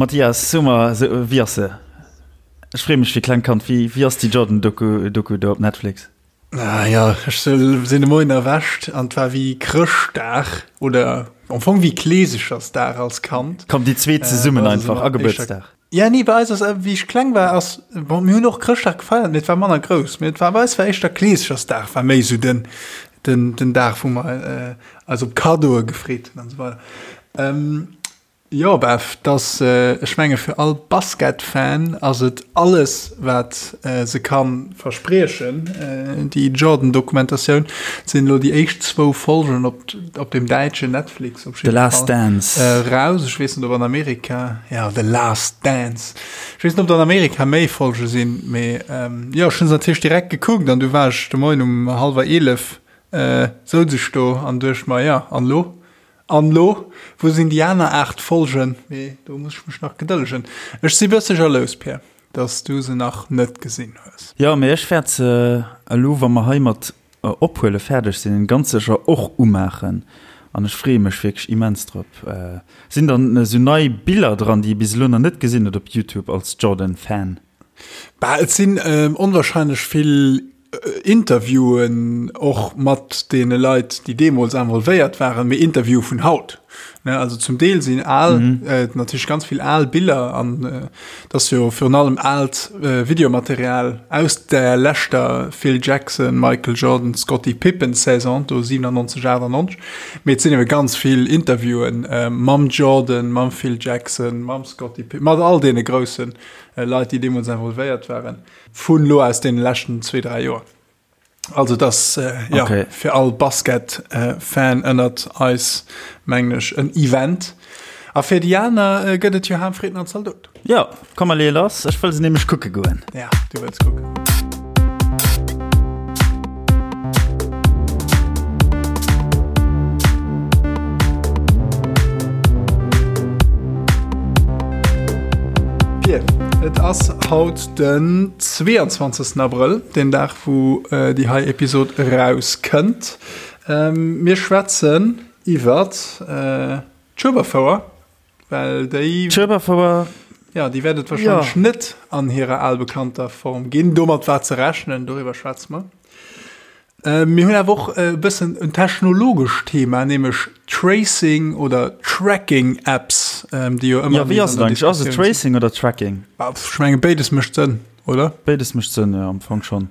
Mathias, so mer, wéi ass se? Ech freeë mech wéi klengt Kand. Wéi, wéi ass déi Jordan-Doku Doku do op Netflix? Ah ja, ech sinn de Moien erwächt an et war wéi Chrëschtdag oder am Fong wéi Kleesechersdag als Kand. Komm, déi zweet zesummen einfach a Gebuertsdag. Ja, nee, bei eis ass, wéi ech kleng war, ass, bon, mir hunn och Chrëschtdag gefeiert, mee et war manner grouss. Mee et war, bei eis war éischter Kleesechersdag war méi esou den, den, den Dag, wou mer eis op Kaddoe gefreet hunn an esou weider. Jo Bev, dass, ech menge fir all Basketfan ass et alles wat se kann verspriechen, déi Jordan Dokumentatioun. Et sinn elo déi éischt zwou Folgen op op dem däitschen Netflix op The Last Dance raus. Ech weess net ob an Amerika, ja The Last Dance, ech weess net ob an Amerika méi Folge sinn, mee jo ech hunn se natierlech direkt gekuckt an du war ech de Moien um hallwer 11 souz ech do an duecht mer, jo an elo? An lo, wou sinn déi aner 8 Folgen? Mee do muss ech mech nach gedëllegen. Ech si bësse jalous, Pierre, dass du se nach net gesinn hues. Jo, mee ech wäert se elo, wa mer hei mat ophuele fäerdeg sinn, ganz sécher och umaachen. An ech freeë mech wierklech immens drop. Sinn dann esou nei Biller dran, déi ee bis elo nach net gesinn huet op Youtube als Jordan-Fan? Bah, et sinn onwahrscheinlech vill Interviewen och mat deene Leit, déi deemools involvéiert waren, mee Interviewe vun haut. Ne, also zum Deel sinn al, mhm. äh, natierlech ganz vill al Biller an äh, dat jo virun allem alt äh, Videomaterial aus der leschter Phil Jackson, Michael Jordan, Scottie Pippen Saison do 97 98. Mee et sinn ewe ganz vill Interviewen äh, mam Jordan, mam Phil Jackson, mam Scottie Pippen, mat all deene groussen äh, Leit, déi deemools involvéiert waren. Vun lo aus den leschten zwee, dräi Joer. Also das äh, ja, okay. fir all Basket-Fan äh, ënnert eis mengen ech en Event. A fir déi aner äh, gëtt et jo Ham Fritten an Zaldot. Ja, komm mal lass, ech wëll se nämlech kucke goen. Ja, du wëlls kucken. Pier, et ass haut Den 22 Abrëll, deen Dag wou déi hei Episod eraus kënnt. Mir schwätzen iwwert d'Schueberfouer, well déi. D'Schueberfouer. Jo, déi wäert et warscheinlech net an hirer albekannter Form ginn. Domat war ze rechnen, doriwwer schwätze mer. Mir hunn awer och e bëssen en technologescht Thema, nämlech Tracing oder Tracking Apps, déi jo ëmmer. Jo, wéi ass et eigentlech? Ass et Tracing oder Tracking? Ech menge béides mécht Sënn, oder? Béides mécht Sënn, jo, am Fong schonn.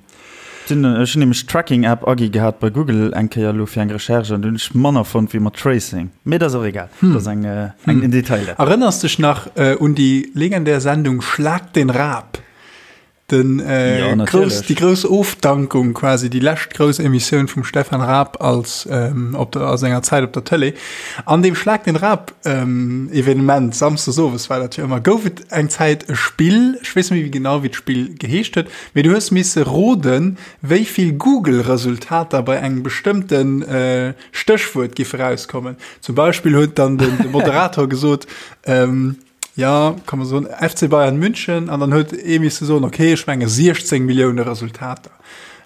Ech hunn nämlech Tracking App agi gehat bei Google eng Kéier elo fir eng Recherche an do hunn ech manner fonnt wéi mat Tracing. Mee dat ass och egal, dat ass eng en Detail dat. Erënners dech nach un déi legendär Sendung Schlag den Raab? Den, äh, ja, grouss, déi grouss Ofdankung quasi déi lescht grouss Emissioun vum Stefan Raab als ähm, op der, a senger Zäit op der Tëlee. An dem Schlag den Raab ähm, Evenement samsdes owes war dat jo ëmmer gouf et eng Zäit e Spill, ech weess net méi genau wéi d'Spill geheescht huet, mee du hues misse roden, wéi vill Google-Resultater bei engem bestëmmten äh, Stéchwuert giffe rauskommen. Zum Beispill huet dann den, de Moderator gesot, ähm, Ja, kann man soen, FC Bayern München an dann huet ee misse soen, okay, ech menge 16 Millioune Resultater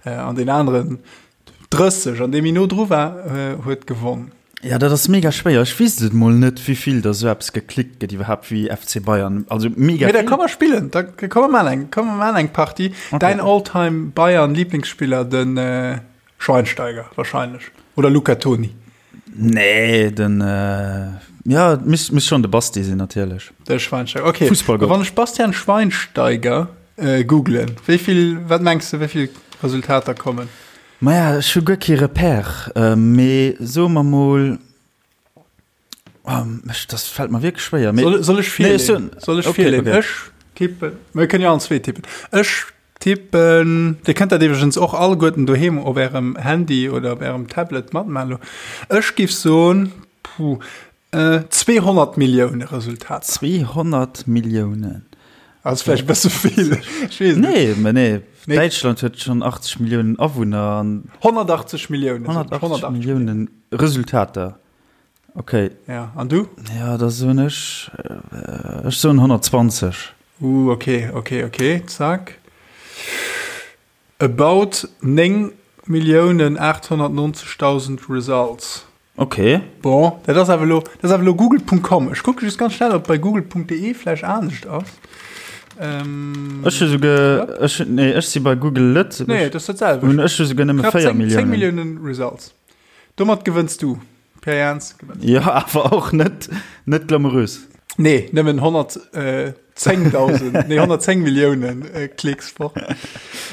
äh, an den aneren 30 an dee méi no dru war, äh, huet gewonn. Ja, dat ass mega schwéier. Ech weess et mol net, wéi vill da sou eppes geklickt gëtt iwwerhaapt wéi FC Bayern. Also mega Mee da komm mer spillen, da komm mer maan eng, komm mer maan eng Partie. Okay. Däin All-Time Bayern Lieblingsspiller, den äh, Schweinsteiger wahrscheinlech oder Luca Toni. Nee, den ja misst misst schon de Basti sinn natierlech. De Schweinsteiger, okay. Fussballgott. Wann ech Bastian Schweinsteiger äh, googlen, wéi vill, wat mengs du, wéi vill Resultater kommen? Maja, ech hu guer kee Repère, äh, mee soe mer mol, oh, ech, das fällt mer wierklech schwéier. Mee, Soll, soll ech nee, ech virleeën? soen, Soll ech okay, virleeën? okay. Ech tippen, mir kënnen jo allen zwee tippen. Ech Tippen, Dir kënnt dat iwwregens och alleguerten doheem op ärem Handy oder op ärem Tablet matmaachen elo. Ech giff soen, puh, 200 Millioune Resultater. 200 Milliounen? Ass vläicht e bësse vill, ech weess et net. Nee, mä nee, Däitschland huet schonn 80 Milliounen Awunner an. 180 Milliounen. 180 Milliounen Resultater. Ok. Ja, an du? Ja, da soen ech, ech soen 120. Uh, ok, ok, ok, zack. About 9 Milliounen 890.000 Results. Ok. Bon, dat ass awer elo, dat ass awer elo Google.com. Ech kucke just ganz schnell, ob bei Google.de vläicht anescht ass. Ähm, ech hu souguer, ech, nee, ech si bei Google Lëtzebuerg. Nee, dat ass dat selwecht. Hunn ech hu souguer nëmme 4 Milliounen. 10 Milliounen Results. Domat gewënns du. Pierre Jans gewënnt. Jo, awer och net, net glamourös. Nee, nëmmen 110.000, nee 110 Milliounen äh, Klicks fort.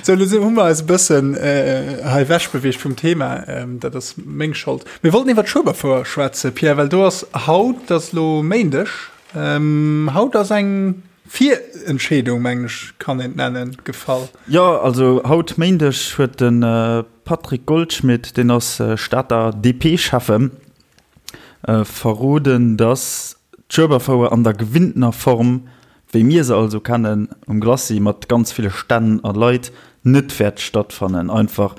So, lo hu mer eis e bëssen äh, hei wechbeweegt vum Thema. Ähm, dat ass meng Schold. Mir wollten iwwer d'Schueberfouer schwätzen, Pierre, well do ass haut, dat ass lo Méindeg, ähm, haut ass eng Virentscheedung, mengen ech, kann een et nennen, gefall. Jo, also haut Méindeg huet de Patrick Goldschmidt, deen ass Stater DP-Schäffen, verroden, datt d'Schueberfouer an der gewinntener Form, wéi mir se also kennen, um Glacis mat ganz ville Stänn a Leit, net wäert stattfannen. Einfach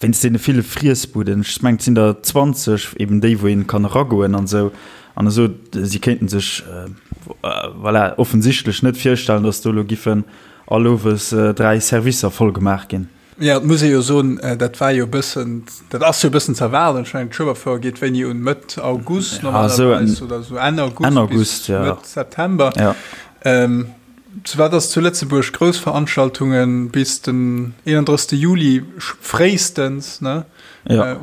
wéinst deene ville Friessbuden. Ech mengen, et sinn der 20, eben déi, wou een kann eragoen an esou. An esou, si kéinten sech, voilà, offensichtlech net virstellen, datt do elo giffen all Owes 3 Servicer voll gemaach ginn. Jo, et muss ee jo soen, dat war jo e bëssen, dat ass jo e bëssen ze erwaarden. Ech mengen, d'Schueberfouer geet wéini un? Mëtt August normalerweis oder esou Enn August bis Mëtt September. Zu wat ass zu Lëtzebuerg grouss Veranstaltunge bis den 31. Juli fréistens, ne,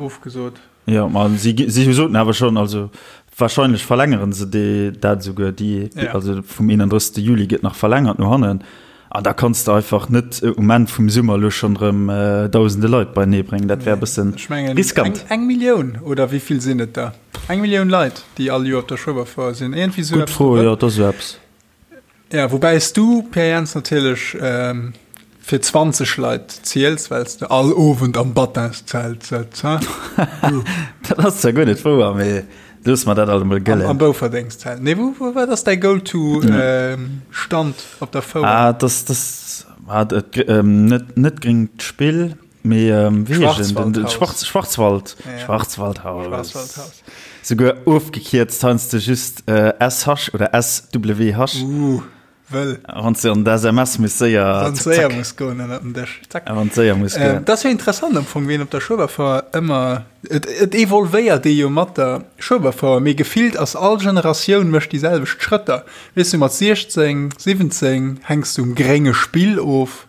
ofgesot. Jo, ma si, si soten awer schonn, also wahrscheinlech verlängere se déi, dat esouguer, déi, ja. also vum 31. Juli gëtt nach verlängert no hannen. An da kanns de einfach net äh, um Enn vum Summer lo schonn erëm äh, dausende Leit beienee bréngen. Dat wär e bëssen Ech mengen, riskant. Eng, eng Millioun oder wéi vill sinn et der? Eng Millioun Leit, déi all Joer op der Schueberfouer sinn. Iergendwéi esou Gutt Fro, jo, et ass esou eppes. Ja, woubäi s du, Pierre Jans, natierlech fir 20 Leit ziels, well s de all Owend am Battinszelt sëtz, ha? Dat ass zwar guer net wouer, mee loosse mer dat alt emol gëllen. Am Bouferdengszelt. Nee, wou, wou, wat ass däi Go-to-Stand op der Fouer? Ah, das, das, ah, dat, net, net gréngt Spill, mee wéi heescht en? Den, den Schwarz, Schwarzwald, ja. Schwarzwaldhaus. Schwarzwaldhaus. Souguer ofgekierzt, heiansdo just SH oder SWH. Uh, wëll. Wann s de an d'SMS muss séier. Wann et séier muss goen ënnert den Dësch. Zack. Wann et séier muss goen. Dat ass jo interessant am Fong, wien op der Schueberfouer ëmmer. Et, et evolvéiert ee jo mat der Schueberfouer, mee gefillt ass all Generatioun mécht déi selwecht Schrëtter. Weess du, mat 16, 17 hänks du um grénge Spill of.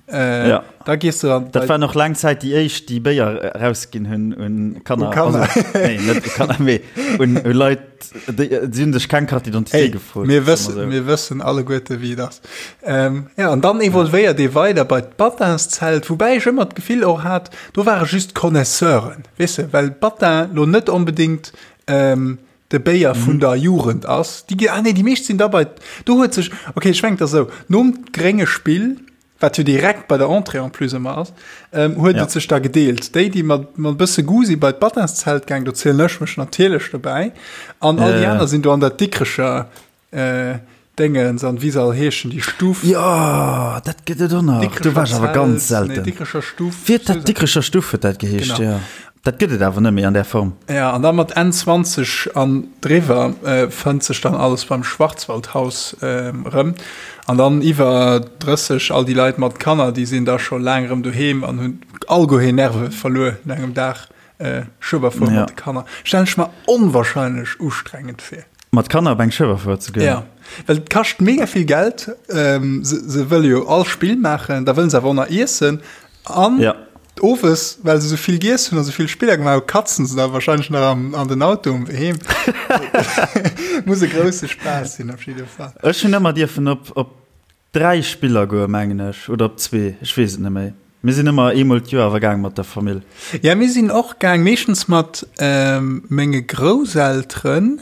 Äh, ja. Da gehst du dann. Dat war noch lang Zäit déi éischt, déi Béier rausginn hunn un Kanner. Un Kanner. Also, nee, net u Kanner, mee un, un Leit, déi, déi hunn sech keng Carte d'identité gefrot. Mir wëssen, so. mir wëssen alleguerte wéi et ass. Ähm, ja, an dann evolvéiert ee weider bei d'Batinszelt, woubäi ech ëmmer d'Gefill och hat, do ware just Connaisseuren, weess de, well Batin lo net onbedéngt ähm, de Béier vun der Jugend ass. Déi, ah nee, déi meescht sinn da bei, do huet sech, okay, ech mengen et ass esou, nom grénge Spill, wat jo direkt bei der Entrée en plus ëmmer ass, ähm, huet et sech da gedeelt. Déi, déi mat, mat e bësse Goût si bei d'Batinszelt gaang, do zielen ech mech natierlech dobäi, an all déi aner sinn do an der Dikrecher äh, Déngens an wéi se all heeschen, déi Stuff. Jo, dat gëtt et och nach. Do war ech awer ganz selten. Nee, Dikrecher Stuff. Wéi huet dat? Dikrecher Stuff huet dat geheescht, jo. Dat gëtt et awer net méi an där Form. Ja, an da mat Enn 20 an driwwer fënnt sech dann alles beim Schwarzwaldhaus erëm. An dann iwwer 30, all déi Leit mat Kanner, déi sinn da scho laang erëm doheem an hunn alleguer hir Nerve verluer no engem Dag Schueberfuer mat de Kanner. Stellen ech mer onwahrscheinlech ustrengend vir. Mat Kanner op eng Schueberfuer ze goen? Ja, well et kascht mega vill Geld. Ähm, se, se wëlle jo all Spill maachen, da wëllen se awer och nach iessen. An ja. owes, well se sou vill giess hunn a sou vill Spiller gemaach hunn, katzen se da wahrscheinlech nach am, an den Auto um Wee heem. Muss e grousse Spaass sinn op jidde Fall. Ech hunn ëmmer dierfen op, op 3 Spiller goe mengen ech, oder op zwee, ech weess et net méi. Mir sinn ëmmer eemol d'Joer awer gaang mat der Famill. Ja, mir sinn och gaang, meeschtens mat menge Grousselteren.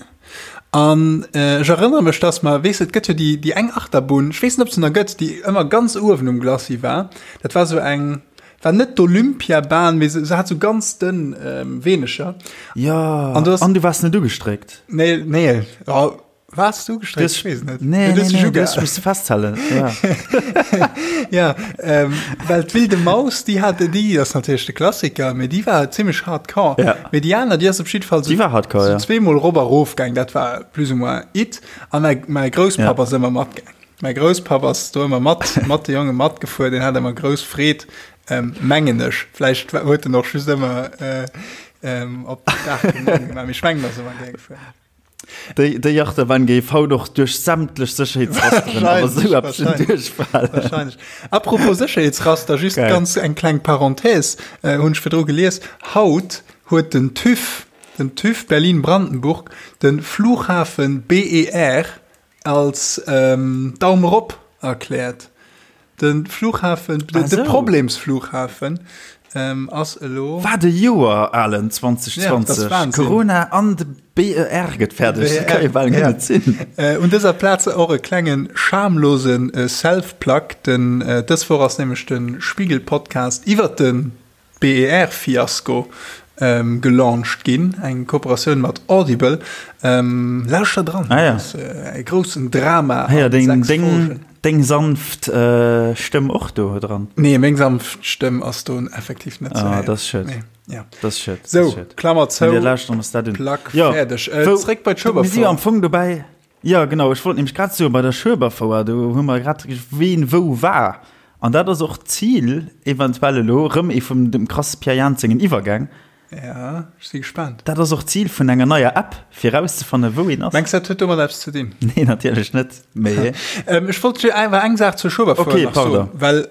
An ech erënnere mech, dass mer, weess de, et gëtt jo déi, déi eng Achterbunn, ech weess net, ob se nach gëtt, déi ëmmer ganz uewen um Glacis war. Dat war esou eng, war net d'Olympiabahn, mee se, se hat esou ganz dënn Weenecher. Jo, an du waars net ugestréckt? Nee, nee, oh. Wars du gestréckt? Ich wees net. Nee, nee, nee, du hast mich festhalen. Ja, ja ähm, well d'Wilde Maus, déi hat déi ass natierlech de Klassiker, mee déi war zimmlech hardcore. Ja. Mee déi aner, déi ass op jidde Fall so, déi war hardcore, so ja. zweemol rop a rof gaang, dat war plus ou moins it. A mäi, mäi Grousspapp ja. ass ëmmer matgaang. Mäi Grousspapp ass do ëmmer mat, mat de Jonge matgefuer, deen hat ëmmer grouss Freed, ähm, mengen ech. Vläicht huet en och just ëmmer äh, Op Daach gemaach. Mee ech mengen, datt se ëmmer gär gefuer. Déi, déi Achterbahn géif haut och duerch sämtlech Sécherheetsrasteren awer sou eppes duerchfalen. Wahrscheinlech. Apropos Sécherheetsraster, just Geil. ganz eng kleng Parenthèse, äh, hunn ech virdru gelies. Haut huet den TÜV, den TÜV Berlin-Brandenburg, de Flughafen BER als ähm, Daum erop erkläert. De Flughafen, de, ah, de Problemsflughafen ähm, ass elo. Wat e Joer, Alen, 2020. Ja, Corona an de BER gëtt fäerdeg. Dat kann jo bal guer net sinn. Äh, un dëser Plaz och e klengen schamlosen äh, Self-Plug. Den, äh, dës Woch ass nämlech de Spiegel-Podcast iwwer de BER-Fiasko ähm, gelauncht ginn, eng Kooperatioun mat Audible. Ähm, lauschter dran, ah, ja. ass, äh, e groussen Drama. Ah, ja, deng, deng, deng sanft äh, Stëmm och do dran? Nee, meng sanft Stëmm ass do effektiv net ah, das ist schön. Nee. Ja. Das ist schön. So, Klammer zou. Plug ja. fäerdeg. Äh, zréck bei d'Schueberfouer. Mir si am Fong dobäi. Jo, genau, ech wollt nämlech grad soen, bei der Schueberfouer, do hu mer grad ween wou war. An dat ass och d'Zil eventuell elo, erëm ee vum dem krasse Pierre Jans sengen Iwwergäng. Ja, ech si gespaant. Dat ass och d'Zil vun enger neier App, fir erauszefannen, wou een ass. Mengs de, dat huet domat eppes ze dinn? Nee, natierlech net, mee. Ech wollt just awer eng Saach zur Schueberfouer Okay, nach soen, pardon. well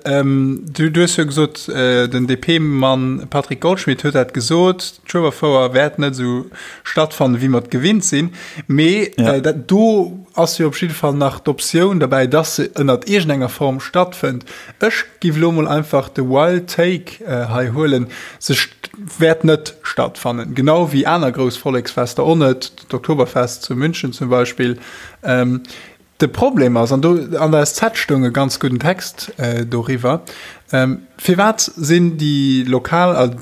du, du hues jo gesot, den DP-Mann Patrick Goldschmidt huet dat gesot, D'Schueberfouer wäert net esou stattfannen, wéi mer et gewinnt sinn. Mee ja. äh, dat, do ass jo op jidde Fall nach d'Optioun derbäi, dass se ënnert iergendenger Form stattfënnt. Ech giff lo mol einfach de Wild Take äh, hei huelen. Se wäert net stattfannen. Genau wéi aner grouss Volleksfester och net, d'Oktoberfest zu München zum Beispill. Ähm, De Problem ass, an do an der SZ stoung e ganz gudden Text doriwwer, firwat sinn déi lokal,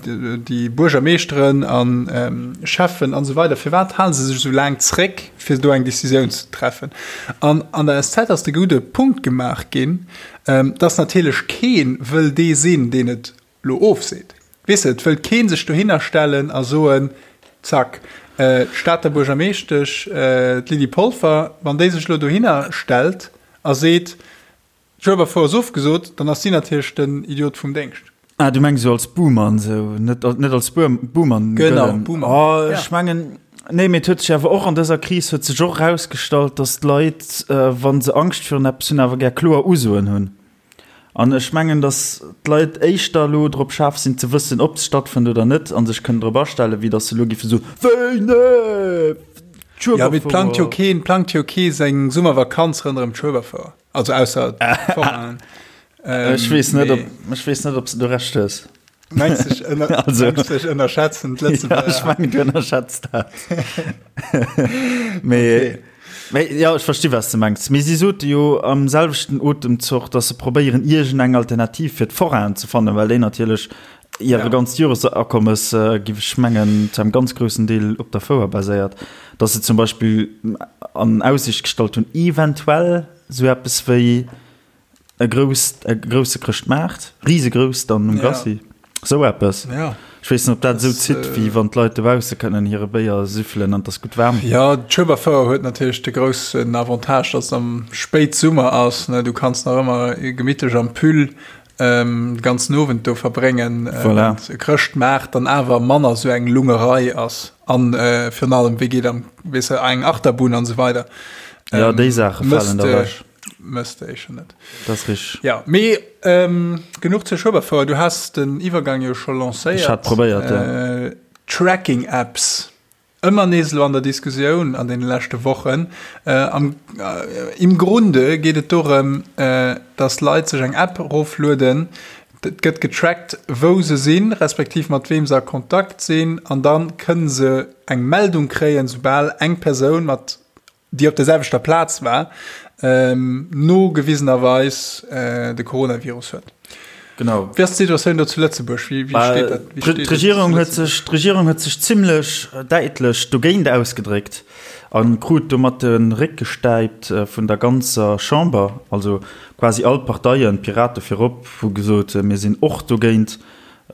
déi Buergermeeschteren a Schäffen an esou weider, firwat hale se sech esou laang zréck, fir do eng Decisioun ze treffen? An an der SZ ass de gudde Punkt gemaach ginn, dass natierlech kee wëll dee sinn, deen et lo ofseet. Weess de, et wëllt kee sech dohinner stellen a soen, zack, d'Stater Buergermeeschtesch, d'Lydie Polfer, wann déi sech elo dohinner stellt a seet, d'Schueberfouer ass ofgesot, dann ass si natierlech den Idiot vum Déngscht. Ah, du mengs esou als Buhmann, esou, net, net als Buhmann Genau, gëllen. Buhmann. Oh, ech mengen, nee, mee et huet sech awer och an dëser Kris huet sech och erausgestallt, datt d'Leit, wa se Angscht virun eppes hunn, awer gär kloer Usoen hunn. An ech mengen, datt d'Leit éischter elo drop schaarf sinn ze wëssen, ob se stattfënnt oder net, a sech kënnen drop astellen, wéi datt se elo géife soen, Wéi, nee, d'Schueberfouer. Jo, mee et plangt jo keen, plangt jo kee seng Summervakanz ronderëm d'Schueberfouer. Also ausser d'Forainen. Ech weess net, ob, ech weess net, ob s de do Recht hues. Mengs du, ech ënner, also, mengs du, ech ënnerschätzen d'Lëtzebuerger? Ja, ech mengen, du ënnerschätz dat. Mee, okay. Mee, ja, ech versti was du mengs. Mee si sote jo am selwechten Otemzoch, dass se probéieren, iergendeng Alternativ fir d'Forainen ze fannen, well déi natierlech hire ja. ganzt Joresakommes, äh, giff ech mengen, zu engem ganz groussen Deel op der Fouer baséiert. Dass se zum Beispill an Aussicht gestallt hunn, eventuell sou eppes wéi E grousst, e grousse Chrëschtmaart, risegrouss dann um Glacis, sou eppes. Ja. Ech weess net, ob dat esou zitt, wéi wann d'Leit dobausse kënnen hire Béier süffelen an et ass gutt waarm. Jo, d'Schueberfouer huet natierlech de groussen Avantage, dass et am Spéitsummer ass, ne, du kanns nach ëmmer gemittlech am Pull de ganzen Owend do verbréngen. Voilà. E Chrëschtmaart dann awer manner sou eng Lungerei ass an virun allem, wéi geet am, weess de, eng Achterbunn an esou weider. Jo, déi Saache falen da ewech. Mësst éischer net. Dat ass richteg. Ja, mee ähm, genuch zur Schueberfouer. Du has den Iwwergang jo scho lancéiert. Ech hat probéiert, ja. Äh, Tracking-Apps. Ëmmer nees elo an der Diskussioun an deene leschte Wochen. Äh, am, äh, Im Grunde geet et dorëm, äh, dass Leit sech eng App eroflueden. Et gëtt getrackt, wou se sinn, respektiv mat weem se a Kontakt sinn. An dann kënne se eng Meldung kréien, soubal eng Persoun mat déi op der selwechter Plaz war, nogewisenerweis de Coronavirus huet. Genau. Wéi ass d'Situatioun do zu Lëtzebuerg? Wéi steet dat? D'Regierung huet sech, d'Regierung huet sech zimlech däitlech dogéint ausgedréckt a krut domat de Réck gestäipt vun der ganzer Chamber. Also quasi all d'Parteien, d'Pirate virop, hu gesot, mir sinn och dogéint.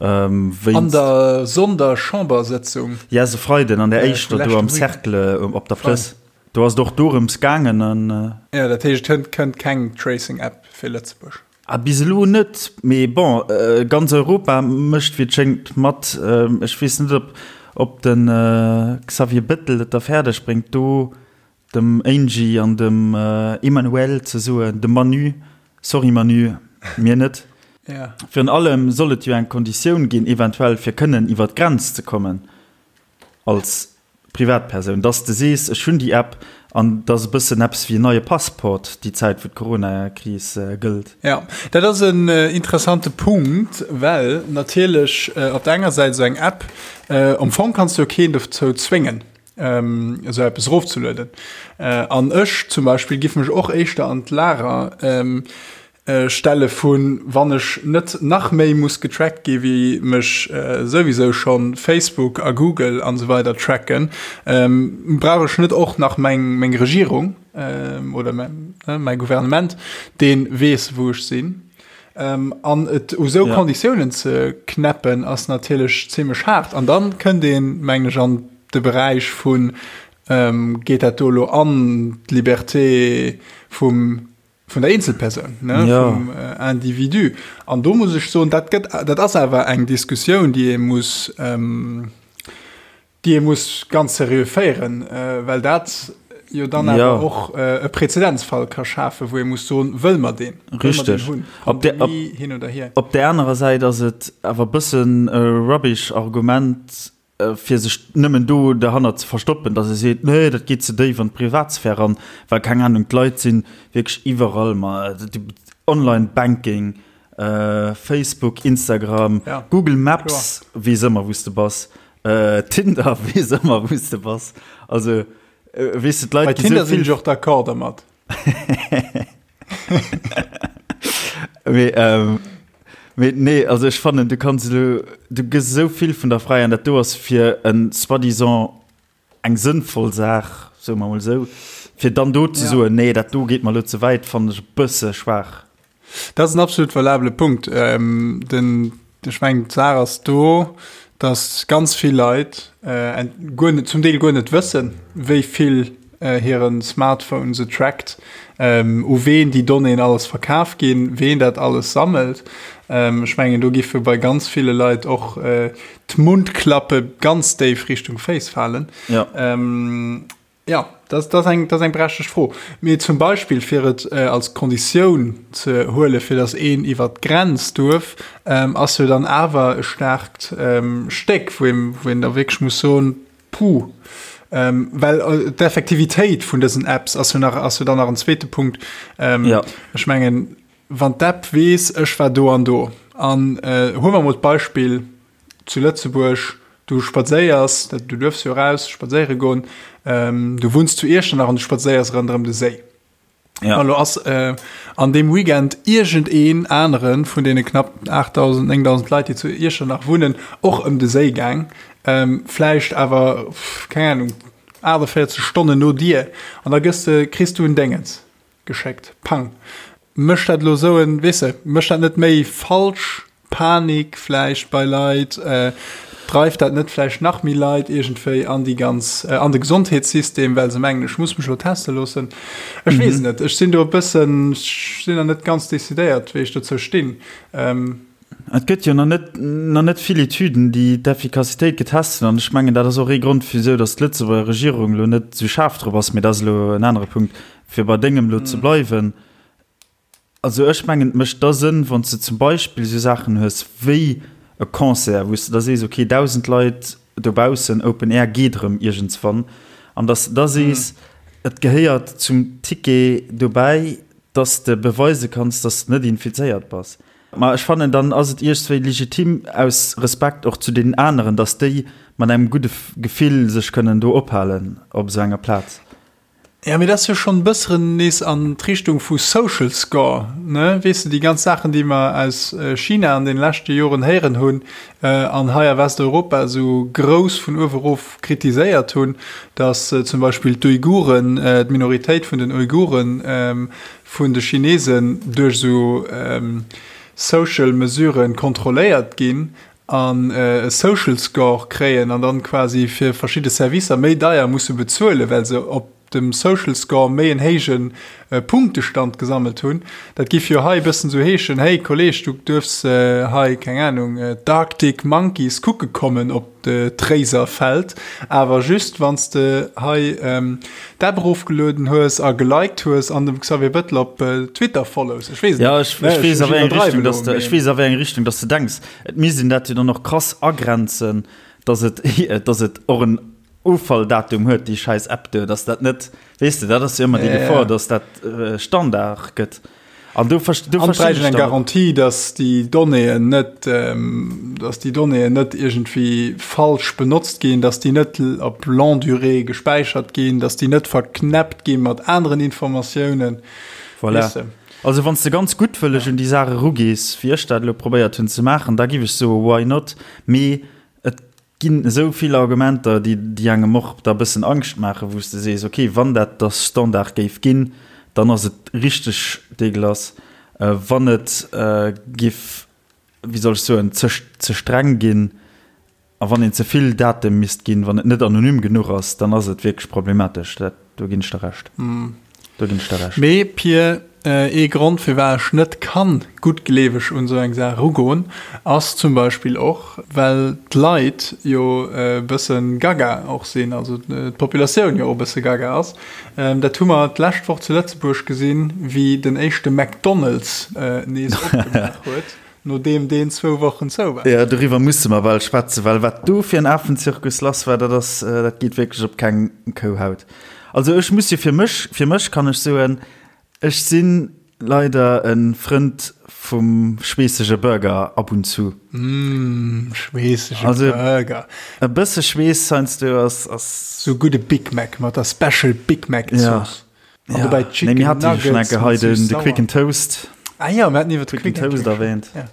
Wéinst. An der Sonderchambersëtzung. Yes, e Freiden an der éischter do am Cercle op der Plëss. Do ass et och dorëms gaangen an. Jo, dat heescht, et kënnt keng Tracing-App fir Lëtzebuerg? Ah, bis elo net, mee bon, ganz Europa mécht wéi et schéngt mat. Ech weess net, ob. Ob de Xavier Bettel et da fäerdeg bréngt, do dem Angie an dem Emmanuel ze soen, dem Manu, sorry Manu, mir net. Virun allem soll et jo eng Konditioun ginn, eventuell fir kënnen iwwer d'Grenz ze kommen als Privatpersoun, dass de sees, ech hunn déi App an et ass e bëssen eppes wéi en neie Passport déi Zäit wou d'Coronakris gëllt. Jo, dat ass en interessante Punkt, well natierlech op der enger Säit esou eng App, am Fong kanns de jo keen dozou zwéngen esou eppes erofzelueden. An ech zum Beispill giff mech och éischter an d'Lager stelle vu wann ech net nach méi muss getrackt gi wéi mech souwisou schonn Facebook a Google an esou weider tracken, brauch ech net och nach meng meng Regierung oder mäi Gouvernement, dee weess wou ech sinn. An et u sou Konditiounen ze knäppen ass natierlech zimmlech haart. An dann kënnt een, mengen ech, an de Beräich vun, geet dat do elo an d'Liberté vum vun der Eenzelpersoun, ne, ja. vum äh, Individu. An do muss ech soen, dat gëtt, dat ass awer eng Diskussioun, déi ee muss, ähm, déi ee muss ganz seriö féieren, äh, well dat jo dann awer ja. och äh, e Präzedenzfall ka schafen, wou ee muss soen, wëll mer deen? Richtig. Hunn? Op der, op, hin oder hier. Op der anerer Säit ass et awer bëssen e rubbish Argument, fir sech nëmmen do derhannert ze verstoppen, datt e seet, nee, dat geet ze déif an d'Privatsphär eran, well, keng Ahnung, d'Leit si wierklech iwwerall, ma Online-Banking, Facebook, Instagram, Google Maps weess ëmmer, wou s de bass, Tinder weess ëmmer, wou s de bass. Also, weess de, d'Leit gi sou vill. Bei Tinder sinn ech och d'accord dermat. Mee, ähm, mee nee, also ech fannen, du kanns elo, du gëss esou vill vun der Fräi an dat do ass fir en soi-disant eng sënnvoll Saach, soe mer mol esou, fir dann do ze soen, nee, dat do geet mer elo ze wäit, fannen ech e bësse schwaach. Dat ass en absolut valabele Punkt. Den, ech mengen, d'Saach ass do, datt ganz vill Leit guer net, zum Deel guer net wëssen, wéi vill hire Smartphone se trackt, u ween déi Donnéeën alles verkaf ginn, ween dat alles sammelt. Ech mengen, do giffe bei ganz ville Leit och d'Mundklappe ganz déif Richtung Féiss falen. Jo, dat ass eng, dat ass eng berechtegt Fro. Mee zum Beispill, fir et als Konditioun ze huelen, fir datt een iwwer d'Grenz duerf, ass jo dann awer e staarkt Stéck, wou een, wou een da wierklech muss soen, Puh. Well d'Effektivitéit vun dësen Apps ass jo nach, ass jo dann nach en zweete Punkt. Ech mengen, wann d'App weess, ech war do an do, an huele mer emol d'Beispill, Zu Lëtzebuerg, du spadséiers, du duerfs jo eraus spadséiere goen, du wunns zu Iechternach an du spadséiers ronderëm de Séi. Ja. Elo ass an deem Weekend iergendeen anere vun deene knapp 8.000, 9.000 Leit, déi zu Iechternach wunnen, och ëm de Séi gaang, vläicht awer, keng Ahnung, 48 Stonnen no dir, an da gëss de, kriss du en Déngens geschéckt. Pang. Mécht dat elo esou en, weess de, mécht dat net méi falsch Panik vläicht bei Leit? Dreift dat net vläicht nach méi Leit iergendwéi an déi ganz, an de Gesondheetssystem, well se mengen, ech muss mech elo teste loossen? Ech weess et net. Ech sinn do e bëssen, ech sinn nach net ganz decidéiert, wéi ech dozou stinn. Et gëtt jo nach net, nach net vill Etüden, déi d'Effikassitéit getest hunn. An ech mengen, dat ass och ee Grond, wisou datt d'Lëtzebuerger Regierung elo net esou schaarf drop ass. Mee dat ass elo en anere Punkt. Fir bei dengem elo ze bleiwen, also ech mengen, et mécht da Sënn, wann s de zum Beispill esou Saachen hues wéi e Concert, wou s de da sees, okay, 1.000 Leit dobaussen, Open Air geet erëm iergendswann, an datt s de da sees, et gehéiert zum Ticket dobäi, datt s de beweise kanns, datt s de net infizéiert bass. Ma ech fannen, dann ass et iergswéi legitim, aus Respekt och zu deenen aneren, datt déi mat engem gudde Gefill sech kënnen do ophalen op esou enger Plaz. Ja, mee dat ass jo schonn e bësseren nees an d'Richtung vu Social Score, ne? Weess de, déi ganz Saachen, déi mer aus China an deene leschte Joren héieren hunn an hei a Westeuropa esou grouss vun uewe erof kritiséiert hunn, datt zum Beispill d'Uiguren, d'Minoritéit vun den Uiguren vun de Chinesen duerch esou Social Mesuren kontrolléiert ginn an e Social Score kréien an dann quasi fir verschidde Servicer méi deier musse bezuelen, well se op. dem Social Score méi en héije Punktestand gesammelt hunn. Dat giff jo hei e bëssen sou heeschen, Hey Kolleg, du duerfs hei, keng Ahnung, d'Arctic Monkeys kucke kommen op d'Réiserfeld, awer just wann s de hei d'App erofgelueden hues a geliked hues an dem Xavier Bettel op Twitter follows. Ech weess et net. Jo, ech weess a wéi eng Richtung dass de, ech weess a wéi eng Richtung dass de denks. Et misst een dat jo dann och krass agrenzen, dass et, dass et och en Offalldatum huet, déi schäiss App do, dass dat net, weess de, dat ass jo ëmmer déi Gefor, dass dat Standard gëtt. An do verstinn ech dann eng Garantie, dass déi Donnéeën net, dass déi Donnéeën net iergendwéi falsch benotzt ginn, dass déi net op longue durée gespäichert ginn, dass déi net verknäppt gi mat aneren Informatiounen. Voilà. Also wann s de ganz guttwëlleg un déi Saach erugees, wéi ech dat elo probéiert hunn ze maachen, da giff ech soe why not? Mee et ginn esou vill Argumenter, déi, déi engem och da bëssen Angscht maachen, wou s de sees, okay, wann dat da Standard géif ginn, dann ass et richteg dégueulasse. Wann et giff, wéi soll ech soen, ze, ze streng ginn a wann een ze vill Date misst ginn, wann et net anonym genuch ass, dann ass et wierklech problematesch. Dat, do ginn ech der Recht. Do ginn ech der Recht. Mee, Pir, ee Grond, firwat ech net kann guttgleeweg un esou eng Saach erugoen, ass zum Beispill och, well d'Leit jo e bësse gaga och sinn, also d'Populatioun jo och e bësse gaga ass. Dat hu mer d'lescht Woch zu Lëtzebuerg gesinn, wéi den éischte McDonald's nees opgemaach huet, nodeem deen zwou Wochen zou war. Jo, doriwwer musse mer bal schwätzen, well wat do fir en Afenzirkus lass war, dat ass, dat geet wierklech op keng Kouhaut. Also ech muss jo fir mech, fir mech kann ech soen, ech si leider e Frënd vum schweessege Burger ab und zu. Mmh, schweessege Burger. E bësse Schweess heiansdo ass, ass. Sou gudde Big Mac mat der Special Big Mac Zooss. Ja. An dobäi Chicken Nuggets. Nee, mir hate jo schonn eng Kéier hei den, de Quick and Toast. Ah jo, mir haten iwwer de Quick and Toast erwähnt. Ja.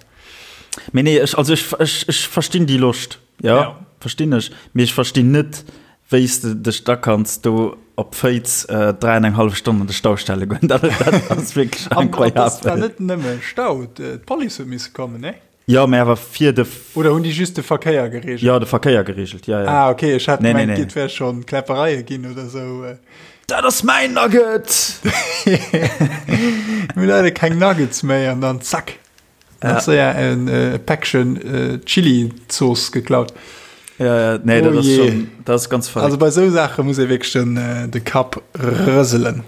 Mee nee, ech, also ech, ech, ech verstinn déi Loscht. Jo, ja. verstinn ech. Mee ech verstinn net, wéi s de dech da kanns do op Féiz 3 an eng hallef Stonn an de Stau stelle goen. Dat ass wierklech incroyabel. An dat war net nëmme Stau, d'Police huet misse kommen, nee? Jo, mä awer fir de. Oder hunn déi just de Verkéier gereegelt? Jo, de Verkéier gereegelt, jo, jo. Ah, okay, ech hat gemengt, et wär schonn Kläppereie ginn oder esou. Dat ass mäin Nugget! Mir hu leider keng Nuggets méi an dann zack. Ja. Séier en äh, Päckchen äh, Chili-Zooss geklaut. Ja, ja, nee, oh dat ass schon, dat ass ganz verrückt. Also bei sou Saache muss ee wierklech den, äh, de Kapp rëselen.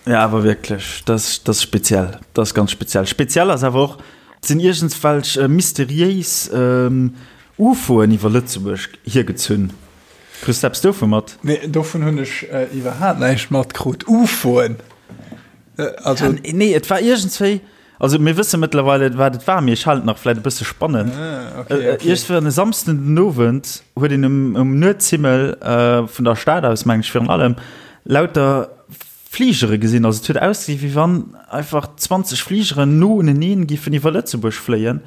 Ja, awer wierklech, dat ass speziell. Dat ass ganz speziell. Speziell ass awer och, et sinn iergendwelch äh, mysteriéis ähm, UFOen iwwer Lëtzebuerg hiergezunn. Kriss du eppes dovu mat? Nee, dovun hunn ech äh, iwwerhaapt näischt matkrut. UFOen? Äh, also. Ja, nee, et war iergendswéi. Also mir wësse mëttlerweile wat et war, mee ech halen et nach vläit e bësse spannend. Ah, okay, äh, okay. Iergendwann e Samsden den Owend huet een um, um Nuetshimmel äh, vun der Stad aus, meng ech virun allem, lauter Fligere gesinn. Also et huet ausgesinn, wéi wann einfach 20 Fligeren no uneneen giffen iwwer Lëtzebuerg fléien.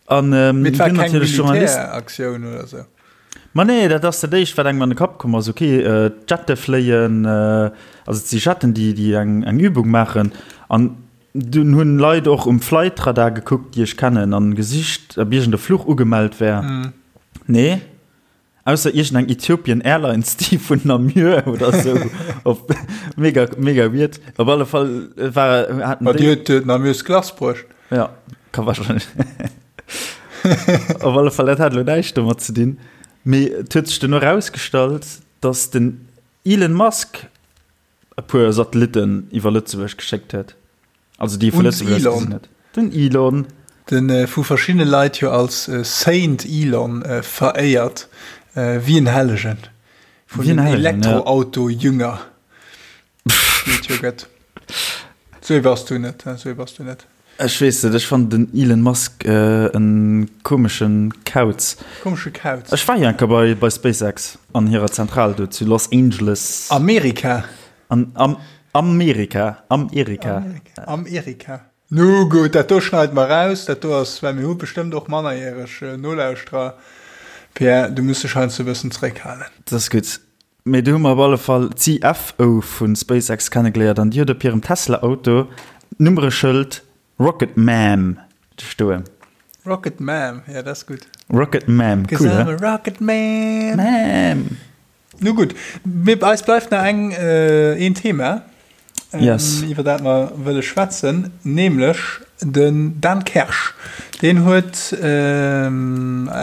An ähm, Mee et war keng Militäraktioun oder sou? Ma nee, dat ass dat éischt, wat engem an de Kapp komm ass. Okay, äh, d'Jette fléien, äh, also et si Jetten, déi, déi eng, eng Übung maachen. An Dunn hunn Leit och um Flightradar gekuckt, déi ech kennen, an gesicht, ob iergend e Fluch ugemellt wär. Nee. Ausser iergend eng Ethiopian Airlines, déi vun Namur oder sou op mega, mega weird. Op alle Fall war, haten déi. Ma déi huet Namurs Glace bruecht. Ja, ka wahrscheinlech. Op alle Fall, dat hat elo näischt domat ze dinn. Mee et huet sech duerno erausgestallt, dass den Elon Musk e puer Satellitten iwwer Lëtzebuerg geschéckt huet. Also déi vu Lëtzebuerg aus gesinn huet. Den Elon. Den vu verschiddene Leit jo als Saint Elon veréiert, wéi en Hellegen. Vun den Elektroauto-Jünger, déi et jo gëtt. Sou ee bass du net, sou ee bass du net. Ech weess net, ech fannen den Elon Musk en komeschen Kauz. Komesche Kauz. Ech war jo eng Kéier bei, bei SpaceX an hirer Zentral do zu Los Angeles. Amerika? An, am, Amerika, Amerika. Amerika. Nu gutt, dat do schneide mer raus. Dat do ass, well mir hu bestëmmt och mannerjäreg Nolauschterer. Pierre, du muss dech heiansdo e bëssen zeréckhalen. Dat ass gutt. Mee do hu mer op alle Fall d'CFO vu SpaceX kennegeléiert an déi huet op hirem Tesla-Auto d'Nummereschëld Rocket Ma'am stoen. Rocket Ma'am, ja dat ass gutt. Rocket Ma'am, cool, he? Rocket Ma'am. Ma'am. Nu gutt, mir, eis bleift nach eng, een Thema, Yes. iwwer dat mer wëlle schwätzen, nämlech den Dan Kersch. Deen huet,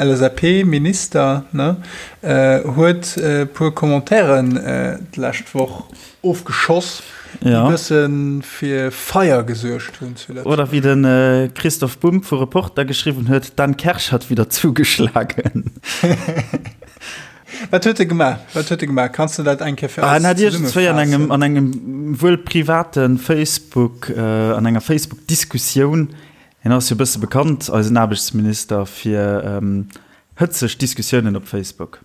LSAP-Minister, ne, huet e puer Commentairen d'lescht Woch ofgeschoss, déi e bësse fir Feier gesuergt hunn zu Lëtzebuerg. Oder wéi de Christoph Bumb vu Reporter geschriwwen huet, Dan Kersch hat wieder zugeschlagen. Wat huet e gemaach? Wat huet e gemaach? Kanns de dat eng Kéier fir eis En hat iergendzwéi an engem, an engem wuel private Facebook, an enger Facebook-Diskussioun, hien ass jo e bësse bekannt, eisen Aarbechtsminister, fir hëtzeg Diskussiounen op Facebook.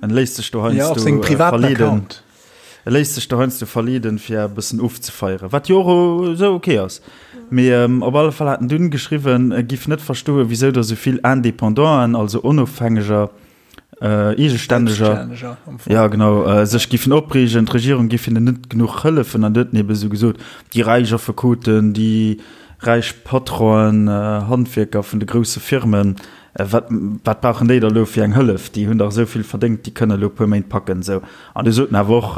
En léisst sech do heiansdo verleeden. E léisst sech do heiansdo verleeden, fir e bëssen ofzefeieren, wat jo och esou ok ass. Mee op alle Fall hat en dunn geschriwwen, e giff net verstoen, wisou der esou vill Indépendanten, also Onofhängeger, Eegestänneger, ja genau, sech giffen opreegen, d'Regierung giff hinnen net genuch hëllefen. An du huet en ebe sou gesot, déi räich Affekoten, déi räich Patronen, Handwierker vun de grousse Firmen, wat, wat brauchen déi da lo fir eng Hëllef, déi hunn dach esou vill verdéngt, déi kënne lo e puer Méint packen. Sou. An du sot en awer och,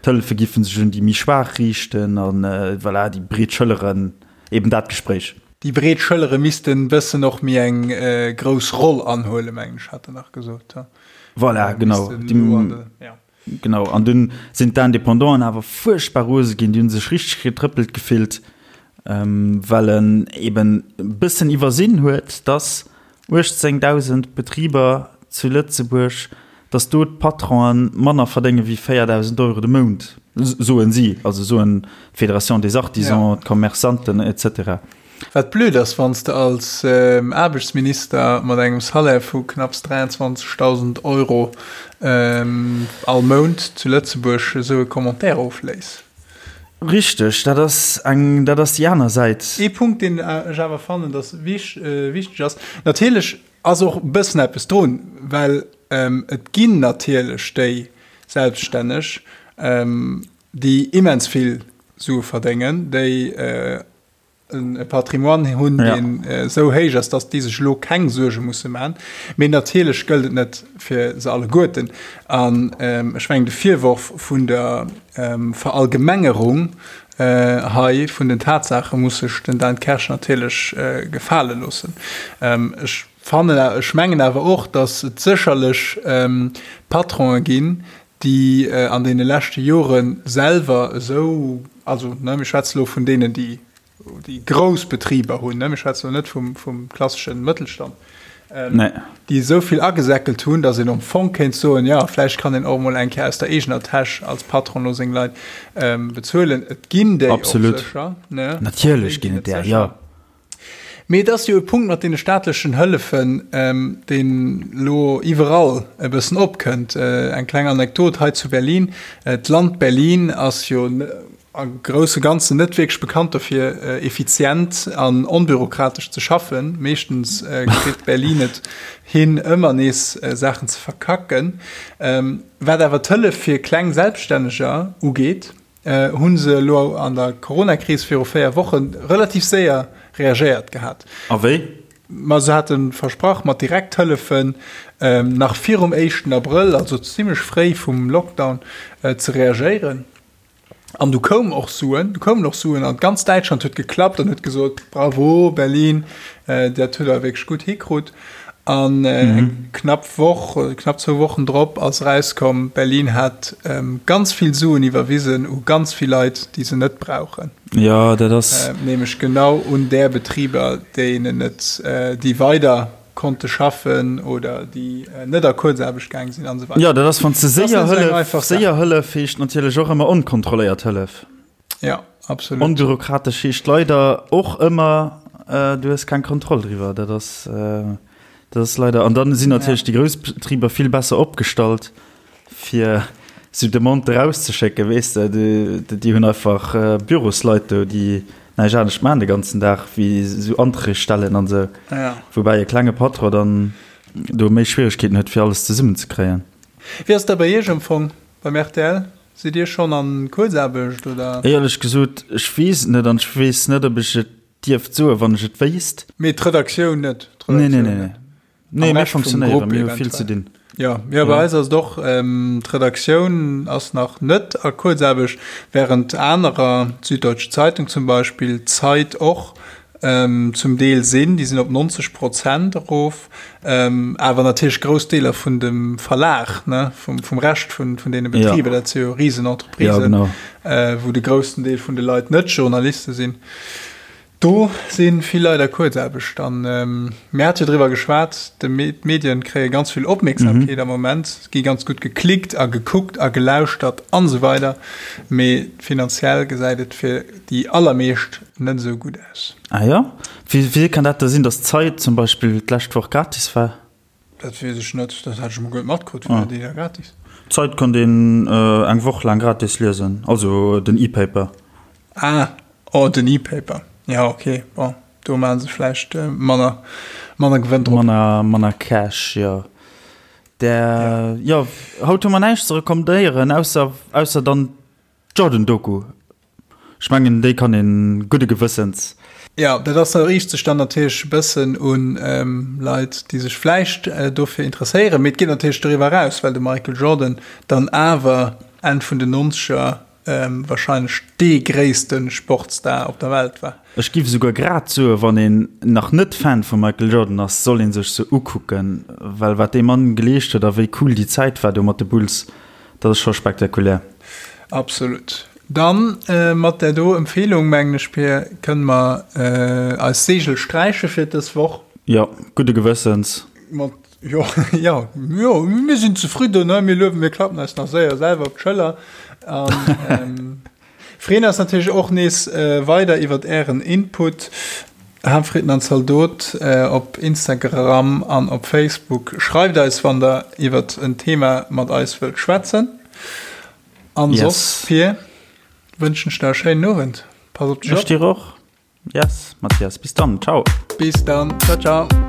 d'Hëllefe giffen sech un déi méi Schwaach riichten an voilà, déi breet Schëlleren, eben dat Gespréich. Déi breet Schëllere missten bëssen och méi eng grouss Roll anhuelen, mengen ech, hat en nach gesot. Voilà, genau. Genau, an dunn sinn d'Independanten awer fuerchtbar rose ginn, déi hu sech richteg getrëppelt gefillt, well en eben e bëssen iwwersinn huet, dass 18.000 Betriber zu Lëtzebuerg, dass do d'Patronen manner verdénge wéi 4.000 Euro de Mount, soen si, also soen d'Fédération des Artisans, d'Commerçanten et cetera. Wat blöd ass, wann s de als Aarbechtsminister mat engem Salaire vu knapps 23.000 Euro all Mount zu Lëtzebuerg esou e Commentaire ofléiss. Richteg, dat ass eng, dat ass déi aner Säit. Ee Punkt, deen ech awer fannen, dass wichteg ass, natierlech ass och e bëssen eppes drun, well et ginn natierlech déi Selbststänneg, déi immens vill Sue verdéngen, déi e Patrimoine hunn, deen esou héich ass, dass déi sech elo keng Suerge musse maachen. Mee natierlech gëllt et net fir se alleguerten. An ech mengen, de Virworf vun der Verallgemengerung hei vun den Tatsaache muss sech den Dan Kersch natierlech gefale loossen. Ech fannen, ech mengen awer och, dass et sécherlech Patronen ginn, déi an deene leschte Jore selwer esou, also ne, mir schwätze lo vun deenen, déi déi grouss Betriber hunn, ne, mir schwätze lo net vum, vum klasseschen Mëttelstand, Nee. déi esou vill agesäckelt hunn, datt een am Fong kéint soen, jo, vläicht kann een och emol eng Kéier aus der eegener Täsch als Patron lo seng Leit bezuelen. Et ginn déi och Absolut. sécher, ne? Natierlech ginn et där, jo. Mee et ass jo e Punkt mat deene staatlechen Hëllefen, deen elo iwwerall e bëssen opkënnt. Eng kleng Anekdot hei zu Berlin, D'Land Berlin ass jo a grousse Ganzen net wierklech bekannt dofir, effizient an onbürokratesch ze schaffen. Meeschtens kritt Berlin et hin, ëmmer nees Saachen ze verkacken. Wat awer d'Hëllef fir kleng Selbststänneger ugeet, hu se elo an der Coronakris viru 4 Woche relativ séier reagéiert gehat. A wéi? Ma se hate versprach, mat Direkthëllefen nach virum éischten Abrëll, also zimmlech fréi vum Lockdown, ze reagéieren. An du koum och Suen, du koumen och Suen an ganz Däitschland huet geklappt an huet gesot, Bravo Berlin, dat hutt der wierklech gutt hikrut. An eng knapp Woch, knapp zwou Wochen drop ass erauskomm, Berlin hat ganz vill Suen iwwerwisen u ganz vill Leit, déi se net brauchen. Jo, dat ass. Nämlech genau un där Betriber, déinen et, déi weider konnte schaffen oder déi net a Kuerzaarbecht gaang sinn an esou weider. Jo, dat ass, wann s de séier Hëllef, séier Hëllef heescht natierlech och ëmmer onkontrolléiert Hëllef. Ja, absolut. Onbürokratesch heescht leider och ëmmer, du hues keng Kontroll driwwer. Dat ass, dat ass leider. An dann sinn natierlech déi grouss Betriber vill besser opgestallt, fir esou Demanden erauszeschécken, weess de. Déi hunn einfach Bürosleit do, déi näischt anescht maachen de ganzen Dag, wéi esou Anträg stellen an esou. Woubäi e klenge Patron dann do méi Schwieregkeeten huet, fir alles zesummenzekréien. Wéi ass dat bei Iech am Fong beim rtl? Sidd Dir schonn an Kuerzaarbecht oder? Éierlech gesot, ech weess et net an ech weess net, ob ech et dierft soen, wann ech et wéisst. Mee d'Redaktioun net? Nee, nee, nee. Nee, mir funktionéieren, mir hu vill ze dinn. Jo, jo, bei eis ass et och, d'Redaktioun ass nach net a Kuerzaarbecht, während anerer, d'Süddeutsche Zeitung zum Beispill, d'Zeit och zum Deel sinn, déi sinn op 90 Prozent erof, awer natierlech grouss Deeler vun dem Verlag, ne, vum, vum Rescht vun, vun deene Betriber, dat si jo Risenentreprisen, wou de groussen Deel vun de Leit net Journaliste sinn. Do si vill Leit a Kuerzaarbecht. An mir hate jo driwwer geschwat, d'Medien kréie ganz vill Opmierksamkeet am Moment, gi ganz gutt geklickt a gekuckt a gelauschtert an esou weider, mee finanziell gesäit et fir déi allermeescht net esou gutt aus. Ah jo? Wéi kann dat da sinn, datt d'Zeit zum Beispill d'lescht Woch gratis war? Dat weess ech net, dat hat ech emol guer net matkrutt, war déi da gratis? D'Zeit konnt een eng Woch laang gratis liesen, also den E-Paper. Ah, oh den E-Paper, jo ok, bon do maache se vläicht manner, manner Gewënn drop. Manner, manner Cash, jo. Där, jo, haut hu mer näischt ze recommandéieren, ausser, ausser dann D'Jordan-Doku, ech mengen déi kann een gudde Gewëssens. Jo, dat ass, riicht sech dann natierlech e bëssen un Leit, déi sech vläicht dofir interesséieren, mee et geet natierlech doriwwer eraus, well de Michael Jordan dann awer Enn vun den Nonzeger warscheinlech dee gréisste Sportstar op der Welt war. Ech giff esouguer grad soen, wann een nach net Fan vum Michael Jordan ass, soll een sech se ukucken, well wat dee Mann geleescht huet a wéi cool déi Zäit war do mat de Bulls, Dat ass scho spektakulär. Absolut. Dann mat där do Empfehlung, mengen ech, Pir, kënne mer eis Segel sträiche fir dës Woch. Jo, gudde Gewëssens. Mat, jo, jo, jo, mir sinn zefridden, ne? Mir luewen, mir klappen eis nach séier selwer op d'Schëller. An Freeën eis natierlech och nees weider iwwert ären Input. Haaptfritten an Zaldot op Instagram an op Facebook. Schreift eis wann der iwwert en Thema mat eis wëllt schwätzen. An soss Pir, wënschen ech der e schéinen Owend. Pass op dech op. Ech dir och. Yes, Mathias, bis dann. Ciao. Bis dann. Ciao, ciao.